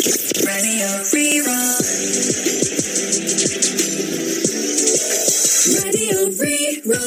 Radio Rí-Rá. Radio Rí-Rá.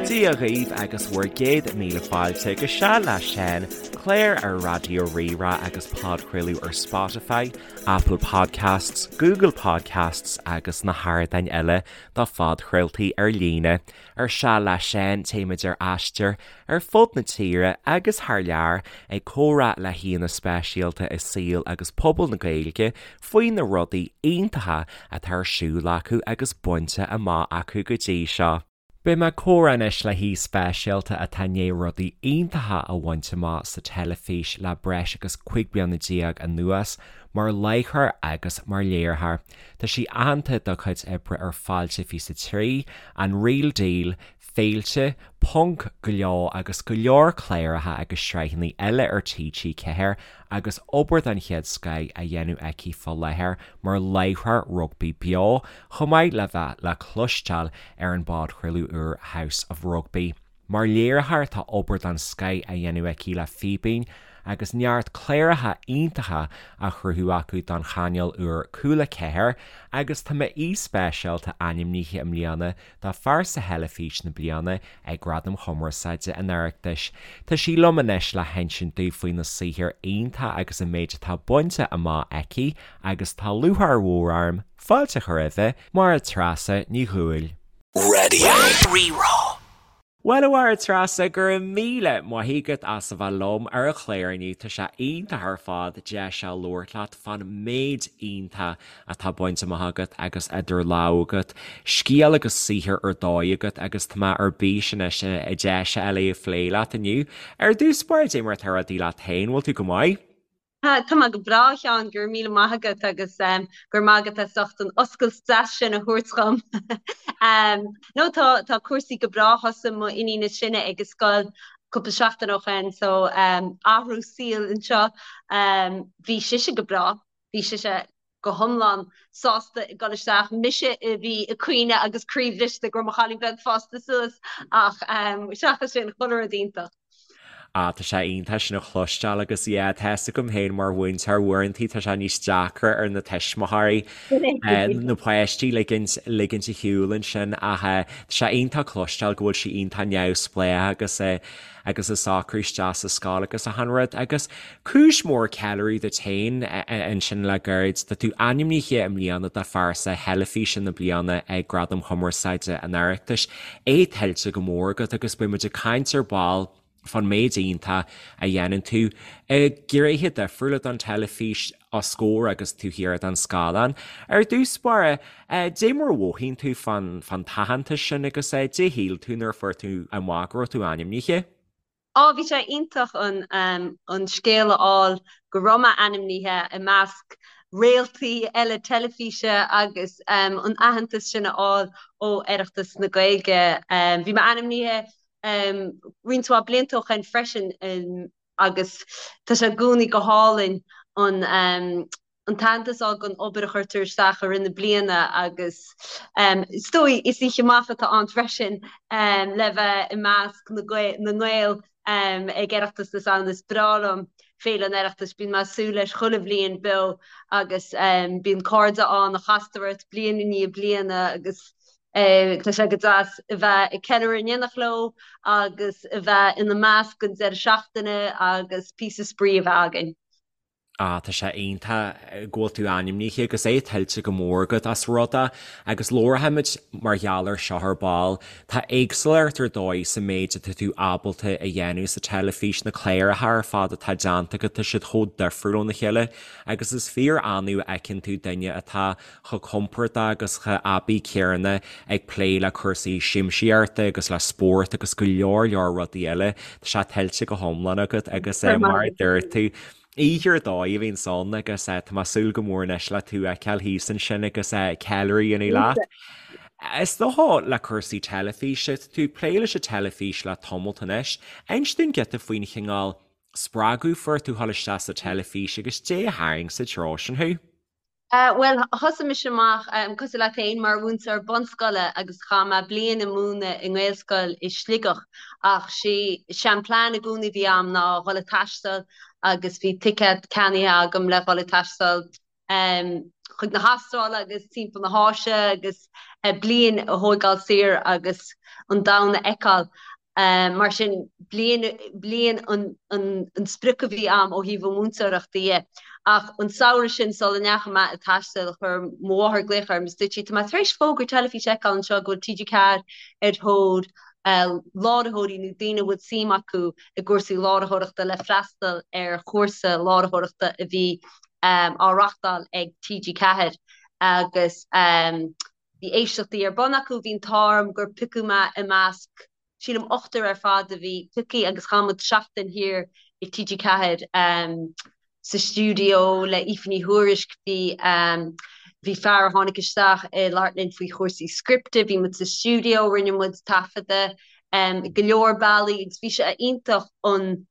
Dia dhaoibh agus bhur gcéad míle fáilte go Seal le Seán, clár ar Raidió Rí-Rá agus podchraoladh ar Spotify, Apple Podcasts, Google Podcasts agus na hardáin eile do phodchraoltaí ar líne. Ar Seal le Seán, téimid ar aistear ar fud na tíre agus thar lear ag comhrá le haíonna speisialta i saol agus pobal na Gaeilge faoi na rudaí iontacha atá ar siúl acu agus bainte amach acu go dtí seo. Beidh mé ag comhrá anois le haoi speisialta atá i ndiaidh rudaí iontacha a bhaint amach sa teilifís le breis agus 15 bliana anuas, mar láithreoir agus mar léiritheoir. Tá sí aitheanta dá cuid oibre ar Fáilte 23, An Real Deal, Féilte, Ponc, Gleo agus go leor cláracha agus sraitheanna eile ar TG4 agus obair den chéad scoith á dhéanamh aici fá láthair mar láithreoir rugbaí beo, chomh maith le bheith le cloisteáil ar an bpodchraoladh úr House of Rugby. Mar léiritheoir tá obair den scoith á dhéanamh aici le Fíbín agus neart cláracha iontacha á chruthú acu don chainéal úr Cúla 4 agus tá m'aoi speisialta ainmnithe i mbliana do Phearsa Theilifíse na Bliana ag Gradaim Chumarsáide an Oireachtais. Tá sí liom anois le hinsint domh faoi na saothair iontacha agus an méid atá bainte amach aici agus tá lúcháir mhór orm fáilte a chur roimhe, Máire Treasa Ní Dhubhghaill. Radio Rí-Rá. Bhuel, a Mháire Treasa, go raibh míle maith agat as a bheith liom ar an chlár inniu. Tá sé iontach ar fad deis a labhairt leat fán méid iontach atá bainte amach agat agus idir lámha agat, scéal agus saothar ar dóigh agat agus tá mé ar bís anois deis a fháil é a phlé leat inniu. Ar dtús báire, dé mar atá rudaí leat féin, bhfuil tú go maith? Tá mé go breá, a Sheáin, go raibh míle maith agat agus go raibh maith agat as ucht an oscailt deas sin a thabhairt dhom. No, tá tá cúrsaí go breá, thosaigh mo iníon is sine ag an scoil cúpla seachtain ó shin, so athrú saoil anseo. Bhí sise go breá, bhí sise go hiomlán sásta ag dul isteach. Mise a bhí ag caoineadh agus croíbhriste go raibh mo chailín beag fásta suas ach seachas sin, chuile rud iontach. Ah, tá sé iontach sin a chloisteáil agus yeah, tá fhios agam féin mar mhúinteoir uaireantaí tá sé níos deacra ar na tuismitheoirí na páistí ligint ligint ar shiúl ansin ach tá sé iontach cloisteáil go bhfuil sí iontach neamhspleách agus agus ag socrú isteach sa scoil agus achan rud agus cúis mhór ceiliúradh duit féin ansin le gairid. Tá tú ainmnithe i mbliana do Phearsa Theilifíse na Bliana ag Gradaim Chumarsáide an Oireachtais. É tuillte go mór agat agus beidh muid ag caint ar ball fán méid iontach a dhéanann tú i ngnéithe difriúla don teilifís os comhair agus taobh thiar den scáileán. Ar dtús báire, dé mar a mhothaíonn tú fán t-aitheantas sin agus dé shíl tú nuair a fuair tú amach go raibh tú ainmnithe? Á, bhí sé iontach an an scéal a fháil go raibh mé ainmnithe i measc réaltaí eile teilifíse agus an aitheantas sin a fháil ó Oireachtas na Gaeilge. Bhí mé ainmnithe roinnt mhaith blianta ó shin freisin agus tá sé i gcónaí go hálainn an an t-aitheantas a fháil don obair a chuirtear isteach i rith na bliana agus is dóigh is oíche amach atá ann freisin le bheith i measc na nGael ag Oireachtas na Samhna. Is breá liom Féile an Oireachtais, bíonn mé ag súil leis chuile bhliain beo agus bíonn cairde ann a chastar ort bliain i ndiaidh bliana agus tá sé go deas a bheith ag ceiliúradh in éineacht leo agus a bheith ina measc an deireadh seachtaine agus píosa spraoi a bheith againn. Ah, tá sé iontach go bhfuil tú ainmnithe agus é tuillte go mór agat as rud é agus labharfaimid mar gheall air seo ar ball. Tá éagsúlacht ar dóigh sa méid atá tú ábalta a dhéanamh sa teilifís, na cláracha ar fad atá déanta agat, tá siad chomh difriúil óna chéile agus is fíor annamh a fheiceann tú duine atá chomh compordach agus chomh aibí céanna ag plé le cúrsaí siamsaíochta agus le spórt agus go leor leor rudaí eile. Tá sé tuillte go hiomlán agat agus mar a dúirt tú, oíche ar dóigh a bhíonns ann agus tá mé ag súil go mór anois le tú a fheiceáil thíos ansin agus ceiliúradh a dhéanamh leat. Is dócha le cúrsaí teilifíse, tá tú ag plé leis an teilifís le tamalt anois. Inis dúinn giota faoin chineál spreagadh fuair tú dhul isteach sa teilifís agus dé a tharraing sa treo sin thú. Bhuel, thosaigh mise amach, cosúil leat féin, mar mhúinteoir bunscoile agus chaith mé bliain ag múineadh i nGaelscoil i Sligeach ach sé an plean i gcónaí a bhí a'm ná dhul ag taisteal agus bhí ticéad ceannaithe agam le dhul ag taisteal chuig na hAstráile agus timpeall na hÁise agus bliain a thóigeáil saor agus an domhan a fheiceáil. Mar sin, bliain, bliain an, an, an sprioc a bhí a'm ó thaobh an mhúinteoireachta dhe. Ach an samhradh sin, sula ndeachaigh mé ag taisteal, chuir mo mháthair glaoch orm is dúirt sí, tá mé tar éis fógra teilifíse a fheiceáil anseo go bhfuil TG4 ar thóir láithreoirí nó daoine a bhfuil suim acu i gcúrsaí láithreoireachta le freastal ar chúrsa láithreoireachta a bhí á reachtáil ag TG4 agus Bhí éisteachtaí ar bun acu, bhí an t-ádh orm gur piocadh mé i measc, sílim ochtar ar fad a bhí pioctha agus chaith muid seachtain thiar i TG4 sa stiúideo le Aoife Ní Thuairisg, bhí bhí fear a tháinig isteach ag labhairt linn faoi chúrsaí scripte, bhí muid sa stiúideo, rinne muid taifeadadh go leor bealaí agus bhí sé iontach an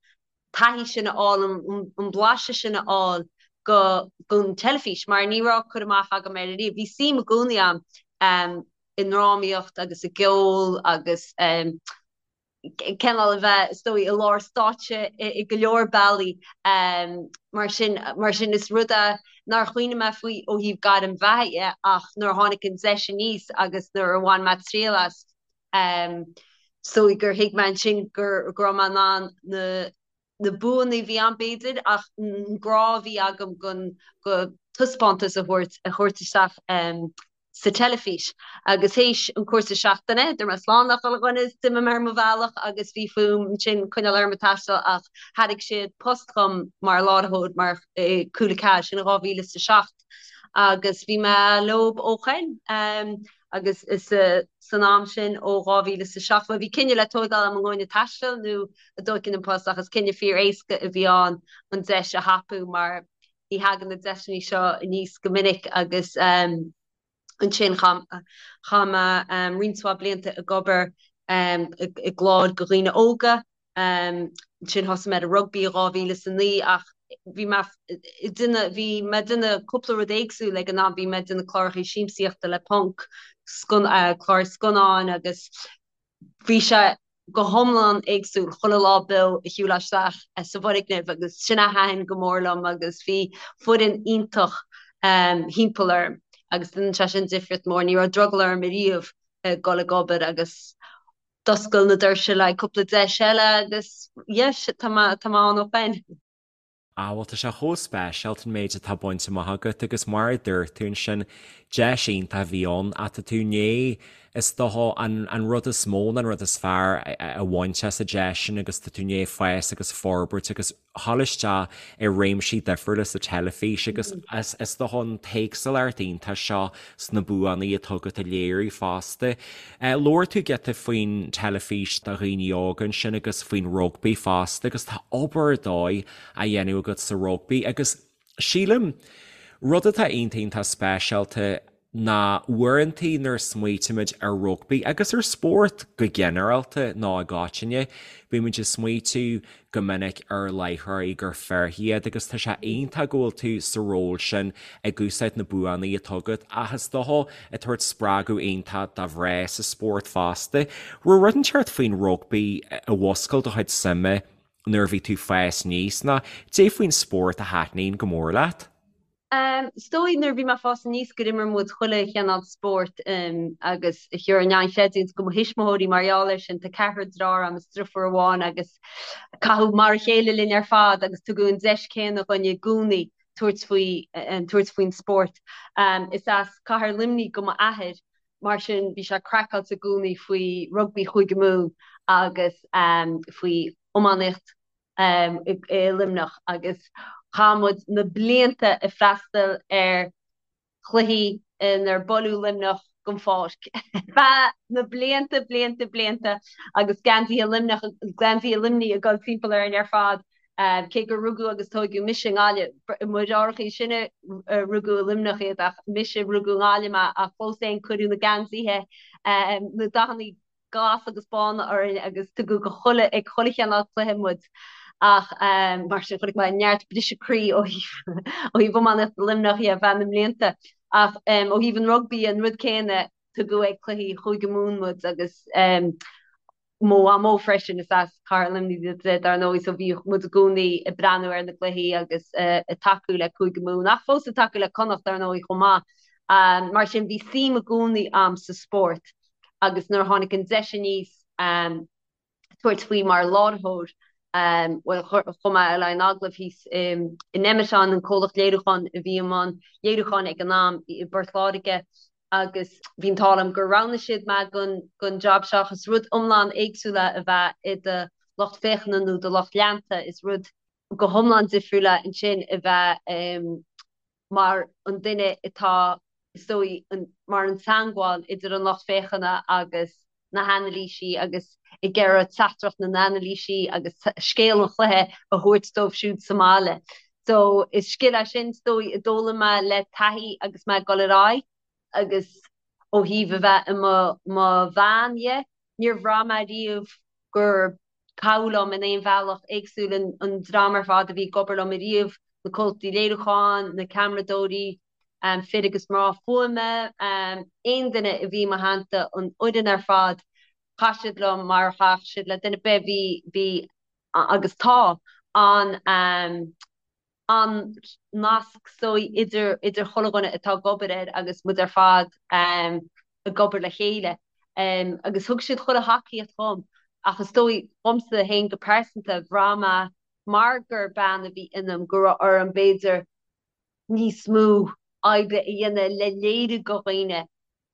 taithí sin a fháil, an blaiseadh sin a fháil go don teilifís mar ní raibh cur amach agam air ariamh. Bhí suim i gcónaí agam i ndrámaíocht agus i gceol agus cineál a bheith, is dóigh, i lár stáitse i go leor bealaí. Mar sin, mar sin is rud é nár chuimhnigh mé faoi ó thaobh gairm bheatha dhe ach nuair a tháinig an deis aníos agus nuair a bhain mé triail as, Is dóigh gur thuig mé ansin go raibh mé in ann na na buanna a bhí ann b'fhéidir ach an grá a bhí agam don go taispeántas a thabhairt a thabhairt isteach sa teilifís. Agus théis an cúrsa seachtaine, dúirt mé slán le chuile dhuine is d'imigh mé ar mo bhealach agus bhí fúm ansin coinneáil orm ag taisteal ach thairg siad post dhom mar láithreoir mar i Cúla 4, sin in 2007 agus bhí mé leob ó shoin. Agus is san am sin ó 2007, bhuel bhí cinneadh le tóigeáil agam an ngabhfainn ag taisteal nó an dtógfainn an post ach is cinneadh fíor éasca a bhí ann an deis a thapú mar ní thagann na deiseanna seo aníos go minic agus ansin chaith mé roinnt mhaith blianta ag obair i gcláir do dhaoine óga. Ansin thosaigh mé ar an rugbaí i 2009 ach bhí mé ag déanamh, bhí mé ag déanamh cúpla rud éagsúil ag an am, bhí mé ag déanamh cláracha siamsaíochta le Ponc, cláir scannáin agus bhí sé go hiomlán éagsúil chuile lá beo a shiúl isteach sa bhfoirgneamh agus sin a thaitin go mór liom agus bhí foireann iontach thimpeall orm agus dhein sé sin difríocht mór. Ní raibh drogall orm ariamh dul ag obair agus D'oscail na doirse le cúpla deis eile agus yes, tá mé tá mé ann ó shoin. Ah bhuel tá sé chomh speisialta an méid atá bainte amach agat agus mar a dúirt tú ansin, deis iontach a bhí ann ach tá tú i ndiaidh is dócha an an rud is mó nó an rud is fearr a bhaint as an deis sin agus tá tú i ndiaidh fás agus forbairt agus dhul isteach i réimsí difriúla sa teilifís agus is dócha an t-éagsúlacht iontach seo sna buanna atá agat a léiriú fosta. Labhair tú giota faoin teilifís do dhaoine óga ansin agus faoin rugbaí fosta agus tá obair ar dóigh á dhéanamh agat sa rugbaí agus sílim rud atá iontach iontach speisialta ná uaireantaí nuair a smaoitímid ar rugbaí agus ar spórt go ginearálta nó i gcoitinne, bímid ag smaoitiú go minic ar láithreoirí gur fir iad agus tá sé iontach go bhfuil tú sa ról sin ag úsáid na buanna atá agat ach is dócha ag tabhairt spreagadh iontach do mhná sa spórt fosta. Raibh rud inteacht faoin rugbaí a mhúscail do chuid suime nuair a bhí tú ag fás aníos nó cad é faoin spórt a thaitníonn go mór leat? Is dóigh nuair a bhí mé ag fás aníos gur imir muid chuile chineál spóirt agus gheobhair in ann creidiúint do mo thuismitheoirí mar gheall air sin. Tá ceathrar deartháir agam is deirfiúr amháin agus caitheadh mar a chéile linn ar fad agus tugadh an deis céanna dhúinn i gcónaí tabhairt faoi tabhairt faoin spórt. Is as cathair Luimnigh do m'athair mar sin bhí sé craiceáilte i gcónaí faoi rugbaí Chúige Mumhan agus faoi iománaíocht i Luimneach agus chaith muid na blianta ag freastal ar chluichí inar buaileadh Luimneach den pháirc feadh na blianta, blianta, blianta agus geansaithe Luimneach, geansaithe Luimnigh ag dul timpeall orainn ar fad. Cé gur rugadh agus tóigeadh mise i nGaillimh, mo dheartháireacha is sine rugadh i Luimneach iad ach mise rugadh i nGaillimh mé ach fós féin cuireadh na geansaithe, na dathanna glas agus bána orainn agus tugadh go chuile, ag chuile chineál cluiche muid. Ach mar sin chonaic mé neart briseadh croí ó thaobh ó thaobh iománaíocht Luimneach dhe ar feadh na mblianta. Ach ó thaobh an rugbaí an rud céanna, tugadh ag cluichí Chúige Mumhan muid agus mo mhamó freisin, is as Cathair Luimnigh di dar ndóigh, so bhíodh muid i gcónaí ag breathnú ar na gcluichí agus ag tacú le Cúige Mumhan, ach fós ag tacú le Connacht dar ndóigh chomh maith. Mar sin bhí suim i gcónaí a'm sa spórt agus nuair a tháinig an deis aníos tabhairt faoi mar láithreoir, bhuel chuaigh mé le haghaidh an agallaimh thíos in Nemeton, an comhlacht léiriúcháin a bhí i mbun léiriúcháin ag an am i bPort Láirge, agus bhí an t-ádh liom gur roghnaigh siad mé don jab seo ach is rud iomlán éagsúil é a bheith i do lucht féachana nó do lucht leanta, is rud go hiomlán difriúil é ansin a bheith mar an duine atá, is dóigh, mar an teangmháil idir an lucht féachana agus na hanailísí agus ag iarraidh teachtaireacht na n-anailísí agus scéal an chluiche a thabhairt dóibh siúd sa mbaile. So is scil é sin, is dóigh, a d'fhoghlaim mé le taithí agus mé ag dul ar aghaidh agus ó thaobh a bheith i mo mo bhean dhe, níor bhraith mé riamh gur caitheadh liom in aon bhealach éagsúil an dream ar fad a bhí ag obair liom ariamh, na comhlachtaí léiriúcháin, na ceamaradóirí, fir agus mná fuaime, aon duine a bhí i mo theannta, an fhoireann ar fad, chaith siad liom mar a chaithfeadh siad le duine ar bith, bhí, bhí agus tá an an nasc is dóigh idir idir chuile dhuine atá ag obair air agus muid ar fad ag obair le chéile. Agus thug siad chuile thacaíocht dhom ach is dóigh dhomsa féin go pearsanta, bhraith mé mar gur bean a bhí ionam go raibh orm b'fhéidir níos mó oibre a dhéanamh le léiriú do dhaoine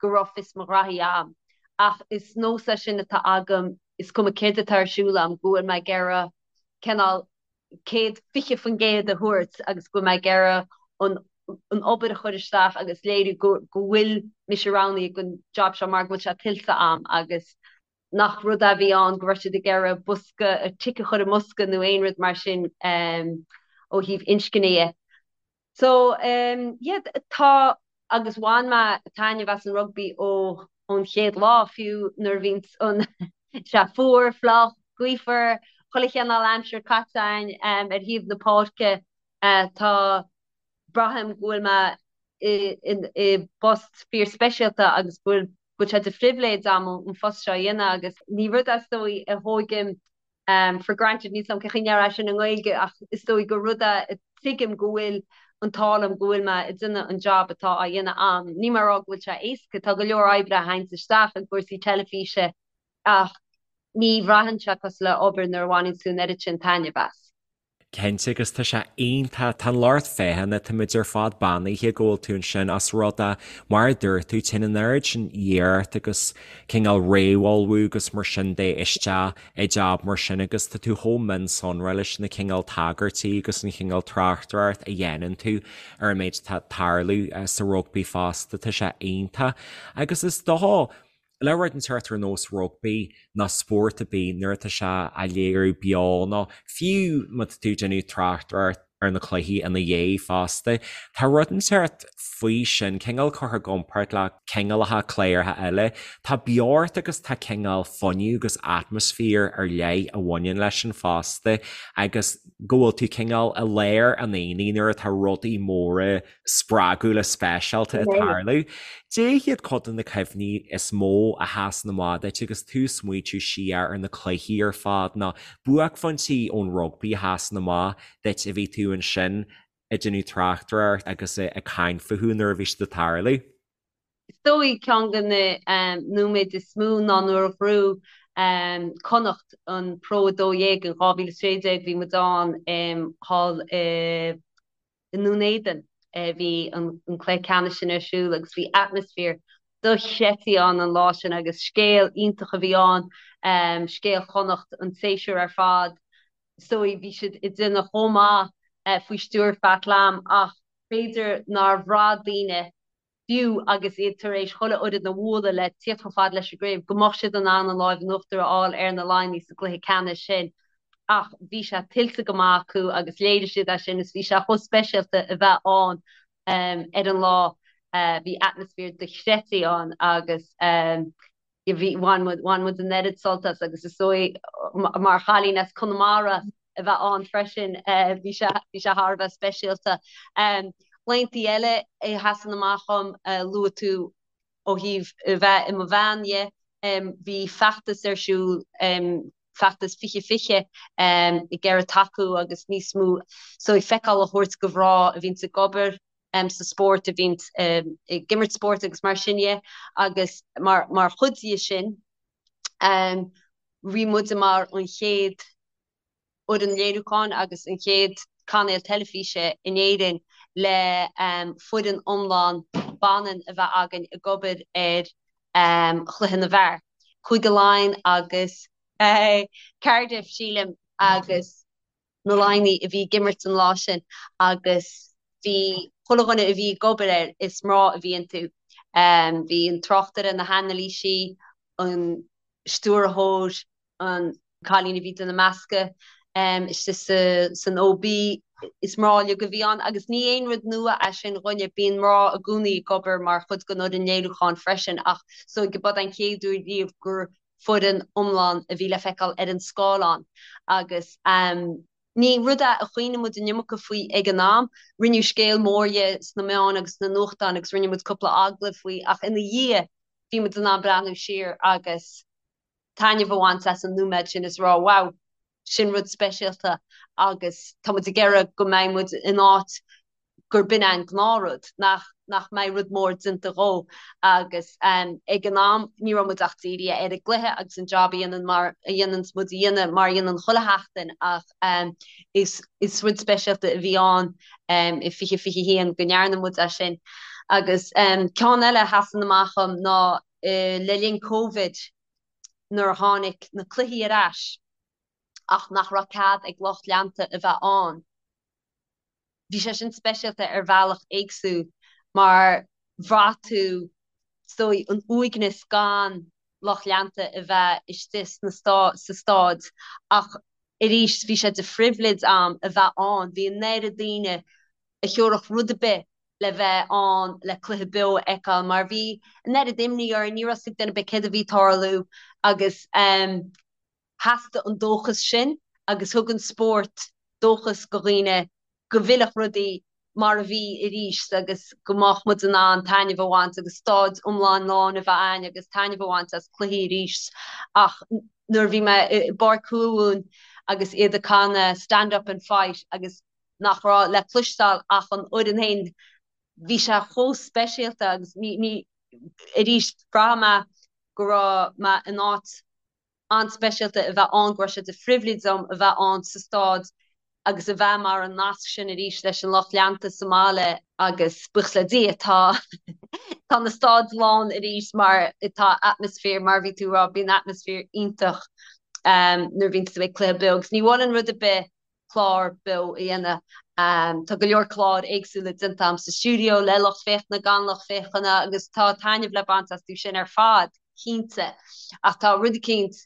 go raibh fios mo ghraithí a'm. Ach is nós é sin atá agam, is cuma céard atá ar siúl a'm, go bhfuil mé ag iarraidh cineál 120% a thabhairt agus go bhfuil mé ag iarraidh an an obair a chur isteach agus léiriú go go bhfuil mise roghnaithe don job seo mar go bhfuil sé tuillte a'm agus nach rud é a bhí ann go raibh siad ag iarraidh bosca, tic a chur i mbosca nó aon rud mar sin ó thaobh inscne dhe. So yeah tá agus bhain mé taitneamh as an rugbaí ó ón chéad lá fiú nuair a bhíonn an sé fuar, fliuch, gaofar, chuile chineál aimsir caite againn ar thaobh na páirce tá braithim go bhfuil mé i i bpost fíor speisialta agus go bhfuil go bhfuil sé de phribhléid agam an phost seo a dhéanamh agus ní rud é is dóigh a thógaim for granted, níl 's a'm cén chaoi a ndéarfá sin i nGaeilge ach is dóigh gur rud é tuigim go bhfuil an t-ádh liom go bhfuil mé ag déanamh an job atá á dhéanamh a'm. Níl mé ag rá go bhfuil sé éasca, tá go leor oibre a théanns isteach i gcúrsaí teilifíse ach ní bhraitheann sé cosúil le obair nuair a bhaineann tú an oiread sin taitneamh as. Cinnte, agus tá sé iontach, tá an lucht féachana, táimid ar fad beannaithe go bhfuil tú ansin ós rud é, mar a dúirt tú, téann an oiread sin iarracht agus cineál réamhullmhú agus mar sin de isteach i jab mar sin agus tá tú chomh mionsonraithe leis na cineál tagairtí agus an chineál tráchtaireacht a dhéanann tú ar an méid atá ag tarlú sa rugbaí fosta, tá sé iontach. Agus is dócha, le rud inteacht ar nós rugbaí nó spórt ar bith nuair atá sé á léiriú beo nó fiú má tá tú ag déanamh tráchtaireacht ar na cluichí ina dhiaidh fosta, tá rud inteacht faoi sin, cineál curtha i gcomparáid le cineálacha cláracha eile. Tá beocht agus tá cineál fuinneamh agus atmaisféar ar leith a bhaineann leis sin fosta agus go bhfuil tú cineál i lár an aonaigh nuair atá rudaí móra spreagúla speisialta ag tarlú. Cad iad cuid de na cuimhní is mó a sheasann amach duit agus tú ag smaoitiú siar ar na cluichí ar fad nó buaicphointí ón rugbaí a sheasann amach duit a bhí tú ansin ag déanamh tráchtaireacht agus ag caint fúthu nuair a bhí siad ag tarlú? Is dóigh ceann de na nóiméid is mó ná nuair a ghnóthaigh Connacht an Pro 12 in 2016, bhí muid ann thall i i nDún Éideann a bhí an cluiche ceannais sin ar siúl agus bhí atmaisféar dochreidte ann an lá sin agus scéal iontach a bhí ann, scéal Chonnacht an tséasúr ar fad. Is dóigh bhí siad ag déanamh chomh maith faoi stiúir Pat Lam ach b'fhéidir nár bhraith daoine fiú agus iad tar éis chuile fhoireann a bhualadh le tíocht chomh fada leis an gcraobh, go mbeadh siad in ann an láimh in uachtar a fháil ar na Laighnigh sa gcluiche ceannais sin. Ach bhí sé tuillte go maith acu agus léirigh siad é sin is bhí sé chomh speisialta a bheith ann ar an lá. Bhí atmaisféar dochreidte ann agus bhí, bhain muid, bhain muid an oiread sult as agus is dóigh mar chailín as Conamara. a bheith ann freisin, bhí sé bhí sé thar a bheith speisialta. Laethanta eile a sheasann amach dhom, luaigh tú ó thaobh a bheith i mo bhean dhe, bhí feachtas ar siúl, feachtas 2020, ag iarraidh tacú agus níos mó so feiceáil a thabhairt do mhná a bhíonns ag obair sa spórt, a bhíonns ag imirt spóirt agus mar sin dhe agus mar chuid dhe sin bhí muide mar an chéad fhoireann léiriúcháin agus an chéad cainéal teilifíse in Éirinn le foireann iomlán baineann a bheith againn ag obair ar chluiche na bhfear, Cúige Laighean agus Cardiff, sílim, agus na Laighnigh a bhí ag imirt an lá sin agus bhí chuile dhuine a bhí ag obair air, is mná a bhí iontu. Bhí an tráchtaire, na hanailísí, an stiúrthóir, an cailín a bhí ag déanamh meascadh istigh san OB, is mná uilig a bhí ann agus ní aon rud nua é sin dhúinne, bíonn mná i gcónaí ag obair mar chuid den fhoireann léiriúcháin freisin ach so ba den chéad uair riamh gur foireann iomlán a bhí le feiceáil ar an scáileán agus ní rud é a chuimhnigh muid an iomarca faoi ag an am. Rinneadh scéal mór dhe sna meáin agus sna nuachtáin agus rinne muid cúpla agallamh faoi ach ina dhiaidh bhí muid in ann breathnú siar agus taitneamh a bhaint as an nóiméad sin is rá wow, sin rud speisialta agus tá muid ag iarraidh go mbeidh muid in áit gur b'in é an gnáthrud, nach nach mbeidh rud mór déanta dhó agus ag an am ní raibh muid ach dírithe ar an gcluiche agus an job a dhéanann mar a dhéananns muid a dhéanamh mar a dhéanann chuile sheachtain ach is is rud speisialta a bhí ann i 2021 go ndearna muid é sin. Agus ceann eile a sheasann amach dhom ná le linn Covid nuair a tháinig na cluichí ar ais ach nach raibh cead ag lucht leanta a bheith ann. Bhí sé sin speisialta ar bhealach éagsúil mar bhraith tú is dóigh an uaigneas gan lucht leanta a bheith istigh sna sa staid ach arís bhí sé de phribhléid a'm a bheith ann. Bhí an oiread daoine a thiúrfadh rud ar bith le bheith ann le cluiche beo a fheiceáil mar bhí an oiread imní orainn, ní raibh 's ag duine ar bith céard a bhí ag tarlú agus theastaigh an dóchas sin agus thug an spórt dóchas go dhaoine go bhfillfeadh rudaí mar a bhí arís agus go mbeadh muid in ann taitneamh a bhaint agus staid iomlán lán a bheith a'ainn agus taitneamh a bhaint as cluichí arís. Ach nuair a bhí mé i bPáirc Thuamhumhan agus iad ag canadh 'Stand Up and Fight' agus nach raibh le cloisteáil ach an fhoireann féin, bhí sé chomh speisialta agus ní, ní, arís, bhraith mé go raibh mé in áit an-speisialta a bheith ann, go raibh sé de phribhléid dom a bheith ann sa staid agus a bheith mar an nasc sin arís leis an lucht leanta sa mbaile agus buíochas le Dia tá tá na staid lán arís mar tá atmaisféar, mar a bhí tú a rá, bíonn atmaisféar iontach nuair a bhíonn tú ag cluiche beo agus ní mholfainn rud ar bith clár beo a dhéanamh. Tá go leor cláir éagsúla déanta agam sa stiúideo le lucht féachana, gan lucht féachana agus tá taitneamh le baint astu sin ar fad, cinnte. Ach tá rud eicínt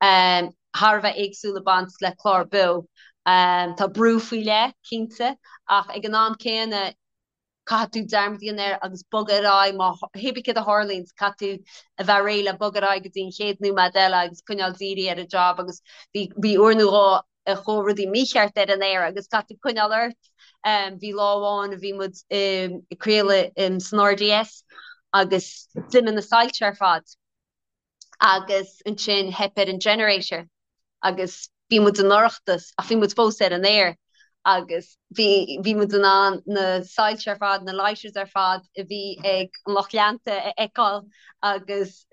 thar a bheith éagsúil ag baint le clár beo. Tá brú faoi leith, cinnte, ach ag an am céanna, caithfidh tú dearmad a dhéanamh air agus bogadh ar aghaidh má hé bí céard a tharlaíonn, caithfidh tú a bheith réidh le bogadh ar aghaidh go dtí an chéad nóiméad eile agus coinneáil dírithe ar an job agus bhí bhí uair nó dhó a chuaigh rudaí mícheart ar an aer agus caithfidh tú coinneáil ort. Bhí lá amháin a bhí muid ag craoladh san RDS agus d'imigh na soilse ar fad. agus ansin theip ar an generator agus bhí muid i ndorchadas ach bhí muid fós ar an aer agus bhí bhí muid in ann na soilse ar fad, na lighters ar fad a bhí ag an lucht leanta a fheiceáil agus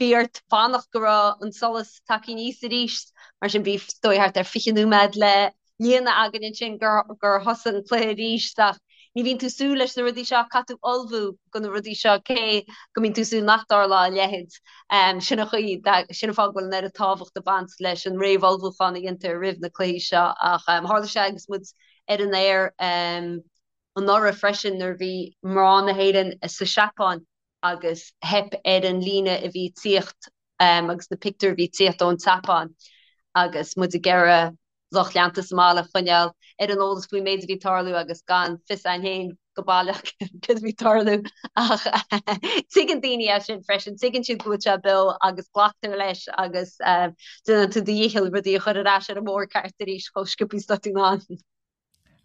bhí ort fanacht go raibh an solas tagtha aníos arís mar sin bhí is dóigh thart ar 20 nóiméad le líonadh againn ansin gur thosaigh an cluiche arís ach ní bhíonn tú ag súil leis na rudaí seo, caithfidh tú ullmhú do na rudaí seo cé go mbíonn tú ag súil nach dtarlódh a leithéid. Sin an chaoi, sin an fáth go bhfuil an oiread tábhacht ag baint leis an réamhullmhúchán a dhéantar roimh na cluichí seo ach tharla sé agus muid ar an aer anuraidh freisin nuair a bhí mná na hÉireann sa Seapáin agus theip ar an líne a bhí ag tíocht agus na pictiúir a bhí ag tíocht ón tSeapáin agus muid ag iarraidh lucht leanta sa mbaile a choinneáil ar an eolas faoin méid a bhí ag tarlú agus gan fios againn féin go. go baileach céard a bhí ag tarlú ach tuigeann daoine é sin freisin, tuigeann siad go bhfuil sé beo agus glactar leis agus déanann tú do dhícheall rudaí a chur ar ais ar an mbóthar ceart arís chomh sciobtha is atá tú in ann.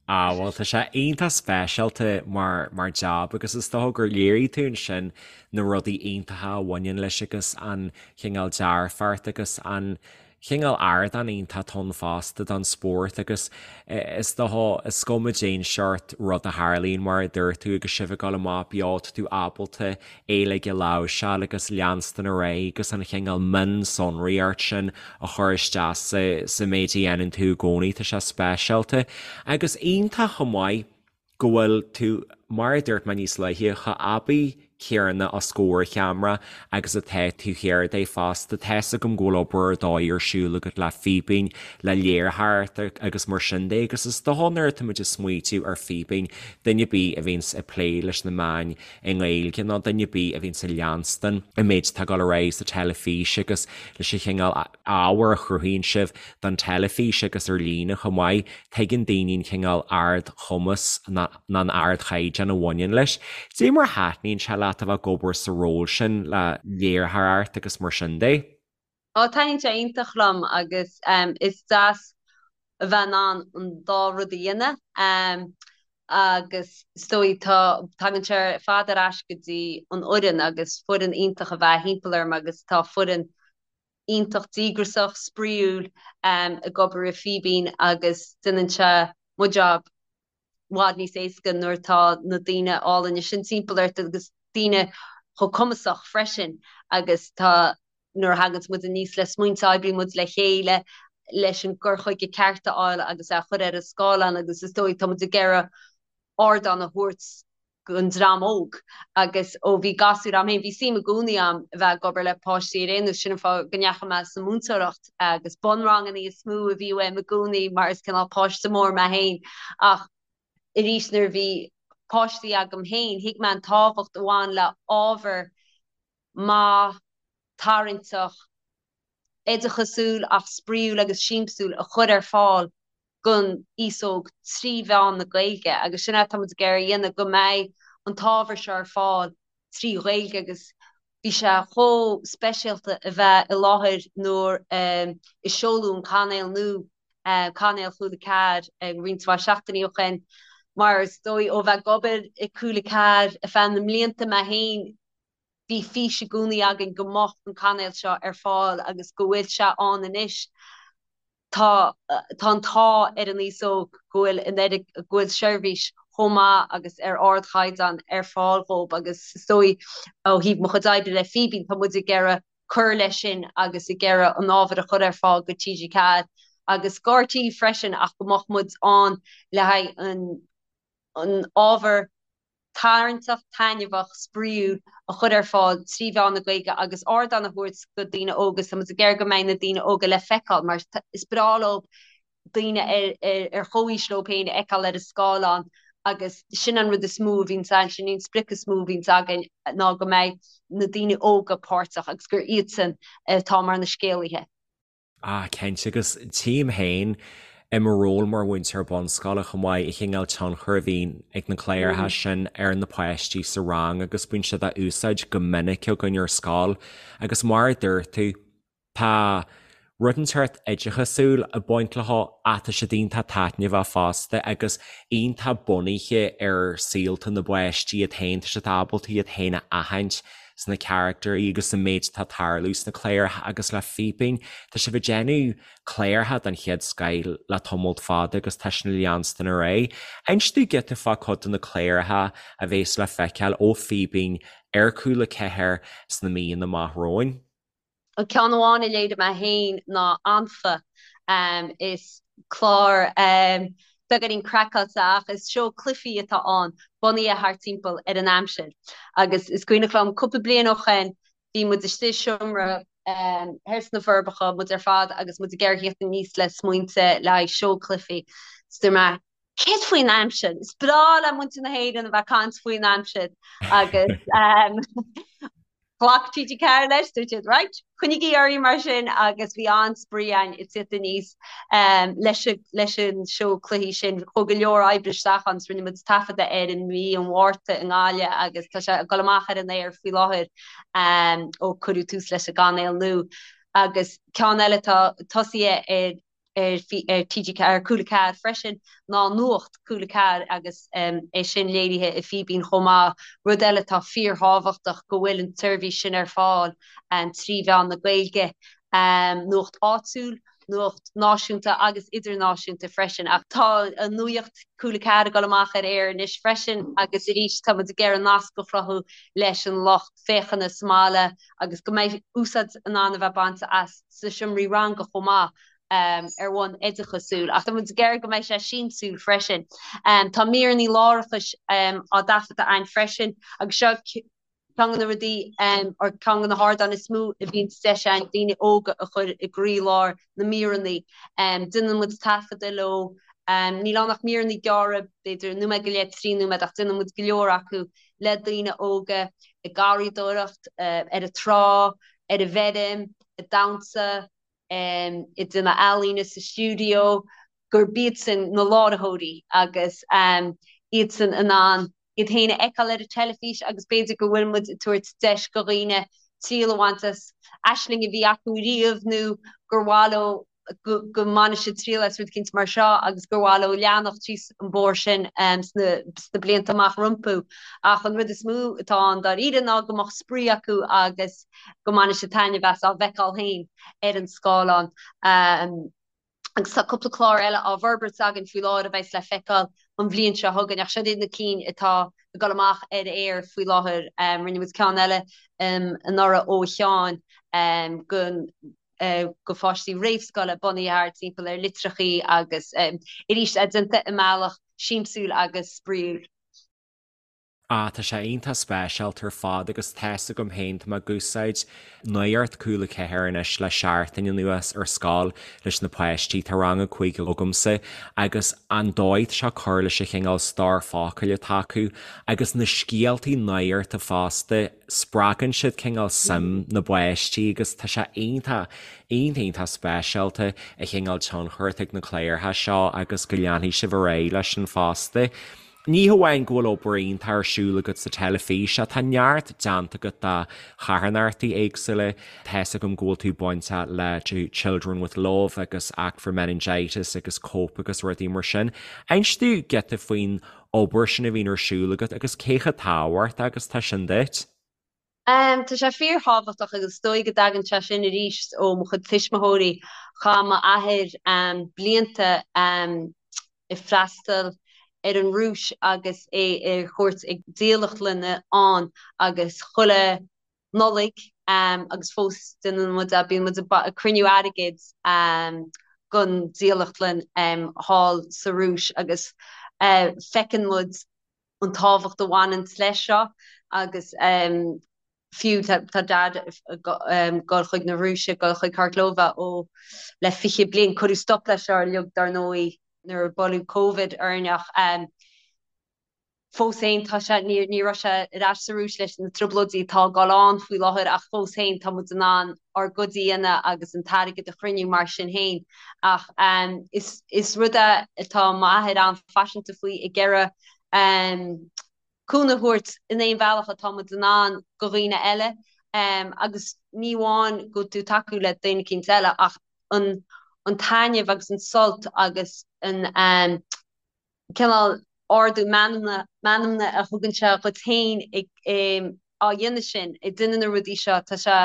Ah bhuel tá sé iontach speisialta mar mar jab agus is dócha gur léirigh tú ansin na rudaí iontacha a bhaineann leis agus an chineál dearfacht agus an chineál ardán iontach atá ann fosta don spórt agus is dócha is cuma cén seort rud a tharlaíonn mar a dúirt tú agus sibh ag dul amach beo tá tú ábalta é uilig a láimhseáil agus leanstan ar aghaidh agus an chineál mionsonraíocht sin a chur isteach sa sa méid a dhéanann tú i gcónaí, tá sé speisialta agus iontach chomh maith go bhfuil tú, mar a dúirt mé níos luaithe, chomh aibí céanna os comhair cheamara agus atá tú thiar de fosta. Tá's agam go bhfuil obair ar dóigh ar siúl agat le Fíbín, le léiritheoireacht agus mar sin de agus is dócha nuair atá muid ag smaoitiú ar Fíbín, duine ar bith a bhíonns ag plé leis na meáin i nGaeilge nó duine ar bith a bhíonns ag leanstan an méid atá ag dul ar aghaidh sa teilifís agus leis an chineál ábhair a chruthaíonn sibh don teilifís agus ar líne chomh maith, tuigeann daoine an cineál ardchumas nó an ardchaighdeán a bhaineann leis. Cad é mar a thaitníonn sé leat a bheith ag obair sa ról sin le léiritheoireacht agus mar sin de? Ó, taitníonn sé iontach liom agus is deas a bheith in ann an dá rud a dhéanamh agus is dóigh tá, tagann sé ar fad ar ais go dtí an fhoireann agus foireann iontach a bheith thimpeall orm agus tá foireann iontach díograiseach, spraíúil ag obair i Fíbín agus déanann sé mo job i bhfad níos éasca nuair atá na daoine álainne sin timpeall ort agus daoine chomh cumasach freisin agus tá nuair a thaganns muid aníos le smaointe oibríonn muid le chéile leis an gcur chuige ceart a fháil agus é a chur ar an scáileán agus is dóigh tá muid ag iarraidh ardán a thabhairt don dream óg agus ó bhí gasúir a'm féin, bhí suim i gcónaí a'm a bheith ag obair le páistí ar aon nós, sin an fáth go ndeachaigh mé sa múinteoireacht agus bunranganna is mó a bhí uaim i gcónaí mar is cineál páiste mór mé féin ach arís nuair a bhí páistí agam féin thuig mé an tábhacht a bhain le ábhar maith, tarraingteach, oideachasúil ach spraíúil agus siamsúil a chur ar fáil don aos óg trí mheán na Gaeilge agus sin é atá muid ag iarraidh a dhéanamh, go mbeidh an t-ábhar seo ar fáil trí Ghaeilge agus bhí sé chomh speisialta a bheith i láthair nuair a seoladh an cainéal nua, cainéal Cúla 4 roinnt mhaith seachtainí ó shin mar is dóigh ó bheith ag obair i Cúla 4 ar feadh na mblianta mé féin, Bhí fís i gcónaí againn go mbeadh an cainéal seo ar fáil agus go bhfuil sé ann anois. Tá tá an t-ádh ar an aos óg go bhfuil an oiread go bhfuil seirbhís chomh maith agus ar ardchaighdeán ar fáil dhóibh agus is dóigh ó thaobh mo chuid oibre le Fíbín tá muid ag iarraidh cur leis sin agus ag iarraidh an ábhar a chur ar fáil go TG4 agus go RTÉ freisin ach go mbeadh muid ann le haghaidh an an ábhar tarraingteach, taitneamhach, spraíúil a chur ar fáil trí mheán na Gaeilge agus ardán a thabhairt do daoine óga is tá muid ag iarraidh go mbeidh na daoine óga le feiceáil mar is breá leo daoine ar chomhaois leo féin a fheiceáil ar an scáileán agus sin an rud is mó a bhíonns againn, sin an sprioc is mó a bhíonns againn ná go mbeidh na daoine óga páirteach agus gur iadsan atá mar na scéalaithe. Ah, cinnte, agus tchím féin i mo ról mar mhúinteoir bunscoile chomh maith, an chineál tionchair a bhíonn ag na cláracha sin ar na páistí sa rang agus bíonn siad á úsáid go minic againn ar scoil. Agus mar a dúirt tú, tá rud inteacht oideachasúil ag baint leo ach tá siad iontach taitneamhach fosta agus iontach bunaithe ar saolta na bpáistí iad féin, tá siad ábalta iad féin a aithint sna carachtairí agus sa méid atá ag tarlú sna cláracha agus le Fíbín. Tá sibh ag déanamh cláracha den chéad scoth le tamalt fada agus tá sin ag leanstan ar aghaidh. Inis dúinn giota fá cuid de na cláracha a bhéas le feiceáil ó Fíbín ar Cúla 4 sna míonna amach romhainn. An ceann amháin a léirigh mé féin ná Anfa. Is clár beagáinín craiceáilte ach is seó cluichí atá ann, bunaithe thart timpeall ar an aimsir. Agus is cuimhneach liom cúpla bliain ó shoin bhí muid istigh i seomra thoir sna Forbacha, muid ar fad agus muid ag iarraidh theacht aníos le smaointe le haghaidh seó cluichí. Is dúirt mé, céard faoin aimsir? Is breá le muintir na hÉireann a bheith ag caint faoin aimsir agus. Ghlac TG4 leis, dúirt siad right, coinnígí oraibh mar sin agus bhí an-spraoi againn ag tíocht aníos leis leis an seó cluichí sin. Chuaigh go leor oibre isteach ann, rinne muid taifeadadh air i mí an Mhárta i nGaillimh agus tá sé ag dul amach ar an aer faoi láthair ó cuireadh tús leis an gcainéal nua. Agus ceann eile atá tosaithe ar ar TG4, ar Cúla 4 freisin, ná Nuacht Cúla 4 agus é sin léirithe i Fíbín chomh maith. Rud eile atá fíorthábhachtach go bhfuil an tseirbhís sin ar fáil trí mheán na Gaeilge, nuacht áitiúil, nuacht náisiúnta agus idirnáisiúnta freisin. Ach tá an Nuacht Cúla 4 ag dul amach ar aer anois freisin agus arís tá muid ag iarraidh nasc a chruthú leis an lucht féachana sa mbaile agus go mbeidh úsáid in ann a bheith bainte as sna seomraí ranga chomh maith ar bhonn oideachasúil. Ach tá muid ag iarraidh go mbeidh sé siamsúil freisin. Tá míreanna láithreachais á dtaifeadadh againn freisin agus seo ceann de na rudaí or ceann de na hardáin is mó a bhíonn deis againn daoine óga a chur i gcroílár na míreanna. Déanann muid taifeadadh leo. Níl ann ach míreanna gearra, b'fhéidir nóiméad go leith, 3 nóiméad, ach déanann muid go leor acu le daoine óga ag garraíodóireacht, ar an trá, ar an bhfeirm, ag damhsa, ag déanamh ealaíne sa stiúideo, gurb iadsan na láithreoirí agus iadsan in ann iad féin a fheiceáil ar an teilifís agus b'fhéidir go bhfuil muid ag tabhairt deis do dhaoine triail a bhaint as aisling a bhí acu riamh nó gur mhaith leo go mbainfidh siad triail as rud eicínt mar seo agus gur mhaith leo leanacht síos an bóthar sin sna blianta amach rompu. Ach an rud is mó atá ann dáiríre ná go mbeadh spraoi acu agus go mbainfidh siad taitneamh as á bhfeiceáil féin ar an scáileán. Agus tá cúpla clár eile á bhforbairt againn faoi láthair a bheas le feiceáil an bhliain seo chugainn ach siod iad na cinn atá ag dul amach ar aer faoi láthair. Rinne muid ceann eile anuraidh ó Sheáin go do pháistí réamhscoile bunaithe thart timpeall ar litreachaí agus arís é déanta i mbealach siamsúil agus spraíúil. Ah, tá sé iontach speisialta ar fad agus tá's agam féin, tá mé ag úsáid Nuacht Cúla 4 anois le seachtain anuas ar scoil leis na páistí, tá rang a 5 agamsa agus an dóigh atá sé ag cur leis an chineál stór focail atá acu agus na scéaltaí nuachta fosta, spreagann siad cineál suim na bpáistí agus tá sé iontach, iontach, iontach speisialta an chineál tionchar atá ag na cláracha seo agus go leanfaidh sibh ar aghaidh leis sin fosta. Ní hamháin go bhfuil obair iontach ar siúl agat sa teilifís ach tá neart déanta agat do charthanachtaí éagsúla. Tá's agam go bhfuil tú bainteach le Children with Love agus Act for Meningitis agus Cope agus rudaí mar sin. Inis domh giota faoin obair sin a bhíonn ar siúl agat agus cé chomh tábhachtach agus tá sin duit? Tá sé fíorthábhachtach agus is dóigh go dtagann sé sin arís ó mo chuid tuismitheoirí. Chaith m'athair blianta ag freastal ar an Rúis agus é ar chuairt ag dílleachtlanna ann agus chuile Nollaig agus fós déanann muid é, bíonn muid ag cruinniú airgid don dílleachtlann thall sa Rúis agus feiceann muid an tábhacht a bhaineanns leis seo agus fiú tá Dad ag dul chuig na Rúise, ag dul chuig Khorlova ó le 20 bliain, cuireadh stop leis seo uilig dar ndóigh nuair a buaileadh Covid orainn ach Fós féin, tá sé, ní, ní raibh sé ar ais sa Rúis leis na trioblóidí atá ag dul on faoi láthair ach fós féin tá muid in ann ár gcuid a dhéanamh agus an t-airgead a chruinniú mar sin féin. Ach is, is rud é atá m'athair an-phaiseanta faoi ag iarraidh cúnamh a thabhairt in aon bhealach atá muid in ann do dhaoine eile agus ní amháin go bhfuil tú ag tacú le daoine eicínt eile ach an, an taitneamh agus an sult agus an cineál ardú meanmna meanmna a thugann sé dhuit féin ag á dhéanamh sin, ag déanamh na rudaí seo, tá sé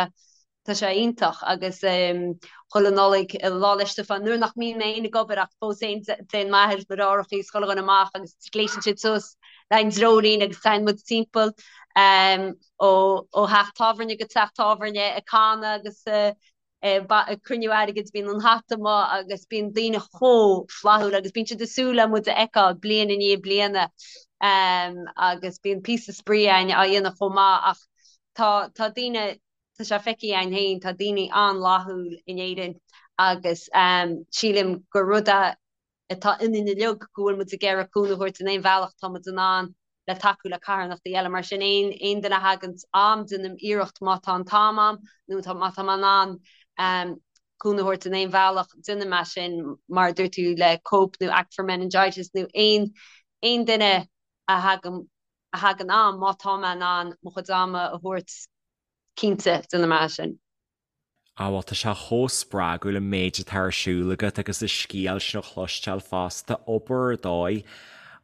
tá sé iontach agus chuile Nollaig, Lá 'le Stiofáin, nuair nach mbíonn mé féin ag obair ach fós féin téann m'athair is mo dheartháireacha is chuile dhuine amach agus gléasann siad suas le an dreoilín agus téann muid timpeall ó ó theach tábhairne go teach tábhairne ag canadh agus ag cruinniú airgid, bíonn an hata amuigh agus bíonn daoine chomh flaithiúil agus bíonn siad ag súil le muid a fheiceáil bliain i ndiaidh bliana agus bíonn píosa spraoi againn á dhéanamh chomh maith ach tá tá daoine, tá sé feicthe againn féin, tá daoine an-fhlaithiúil in Éirinn agus sílim gur rud é atá ionainn uilig go bhfuil muid ag iarraidh cúnamh a thabhairt in aon bhealach atá muid in ann. le tacú le carthanachtaí eile. Mar sin aon aon duine a thaganns a'm déanaim iarracht má tá an t-am a'm nó tá má tá mé in ann cúnamh a thabhairt in aon bhealach déanaim é sin mar a dúirt tú le Cope nó Act for Meningitis nó aon aon duine a thagann a thagann a'm má tá mé in ann mo chuid ama a thabhairt cinnte déanaim é sin. Á bhuel tá sé chomh spreagúil an méid atá ar siúl agat agus an scéal sin a chloisteáil fosta, obair ar dóigh.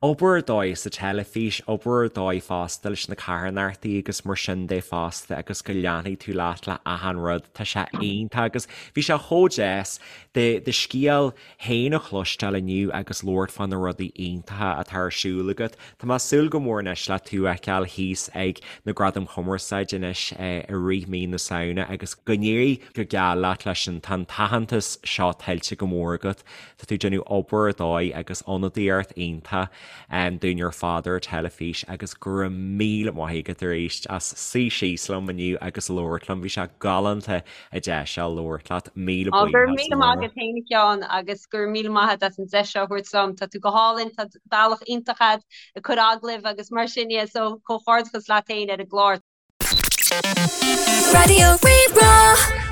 Obair ar dóigh sa teilifís, obair ar dóigh fosta leis na carthanachtaí agus mar sin de fosta agus go leanfaidh tú leat le achan rud, tá sé iontach agus bhí sé chomh deas do scéal féin a chloisteáil inniu agus labhairt fá na rudaí iontacha atá ar siúl agat. Tá mé ag súil go mór anois le tú a fheiceáil thíos ag na Gradaim Chumarsáide anois i rith mí na Samhna agus go n-éirí go geal leat leis sin. Tá an t-aitheantas seo tuillte go mór agat. Tá tú ag déanamh obair ar dóigh agus ionadaíocht iontach dúinn ar fad ar an teilifís agus go raibh míle maith agat arís as suí síos liom inniu agus labhairt liom. Bhí sé galánta an deis seo labhairt leat. Míle Ó, go raibh míle maith agat féin a Sheáin agus go raibh míle maith agat as an deis seo a thabhairt dom. Tá tú go hálainn, tá bealach iontach agat ag cur agallaimh agus mar sin dhe, so comhghairdeachas leat féin ar an gclár. Raidió Rí-Rá.